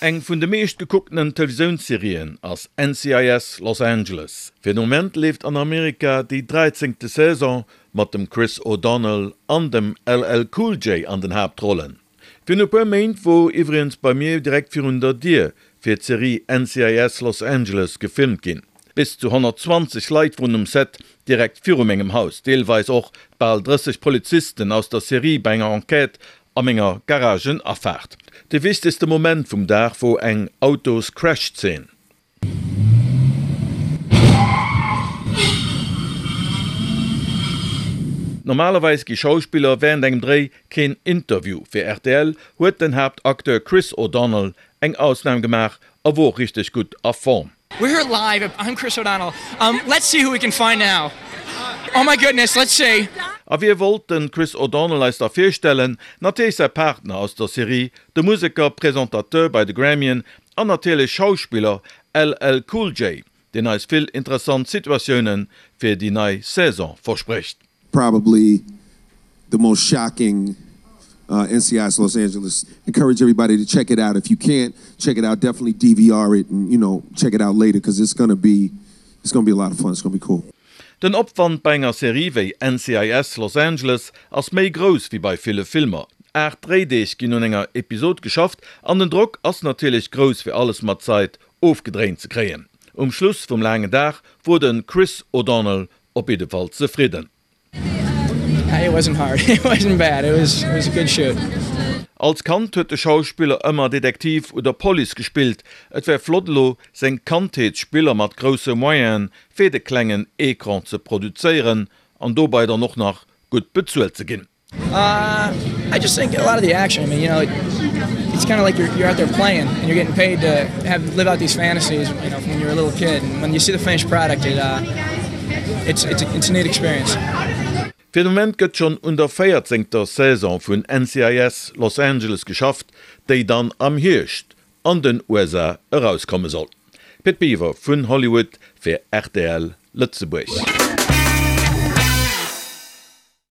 Eng vun de meescht gekucktenen Televisiounsserien ass NCIS, Los Angeles. Fir de Moment leeft an Amerika déi dräizéngte Saison mat dem Chris O'Donnell an dem LL Cool J an den Haaptrollen. Virun e puer Méint wor iwwregens bei mir direkt virun der Dier fir d'Serie NCIS Los Angeles gefilmt ginn. Bis zu 120 Leit woren um Set direkt viru mengem Haus, deelweis och bal 30 Polizisten aus der Serie bei enger Enquête a menger Garagenafaart. De wichtegste Moment vum Dag wor eng Autos-Crash-Zeen. Normalerweis gi Schauspiller wärend engem Dréi keen Interview. Fir rtl huet den Haaptacteur Chris O'Donnell eng Ausnam gemaach a wor richteg gutt a Form. We're here live, I'm Chris O'Donnell, let's see who we can find now, oh my goodness, let's see. A wie wollt de Chris O'Donnell eis da virstellen? Natierlech säi Partner aus der Serie, de Museker, Presentateur bei de Grammyen An natierlech Schauspiller LL Cool J, deen eis vill interessant Situatioune fir déi nei Saison versprécht. Probably the most shocking NCIS Los Angeles. Encourage everybody to check it out. If you can't check it out, definitely DVR it and you know check it out later cause it's gonna be it's gonna be a lot of fun. It's gonna be cool. Den Opwand bei enger Serie wéi NCIS, Los Angeles ass méi grouss wéi bei ville Filmer. 8 Dréideeg ginn un enger Episod geschafft an den Drock ass natierlech grouss fir alles mat Zait ofgedréint ze kréien. Um Schluss vum laangen Dag wor de Chris O'Donnell op jiddefalls zefridden. Als Kand huet de Schauspiller ëmmer Detektiv oder Police gespillt. Et wär flott elo seng Kandheetsspiller mat grousse Moyenen fir de klengen Ecran ze produzéieren an dobei dann och nach gutt bezuelt ze ginn. I just think a lot of the action, I mean, you know, it's kind of like you're, you're out there playing and you're getting paid to have live out these fantasies, you know, from when you were a little kid. And when you see the finished product, it, uh, it's, it's, a, it's a neat experience. Fir de Moment gëtt schonn un der véierzéngter Saison vun NCIS, Los Angeles geschafft, déi dann am Hierscht an den USA erauskomme soll. Pit Biwer vun Hollywood fir rtl Lëtzebuerg.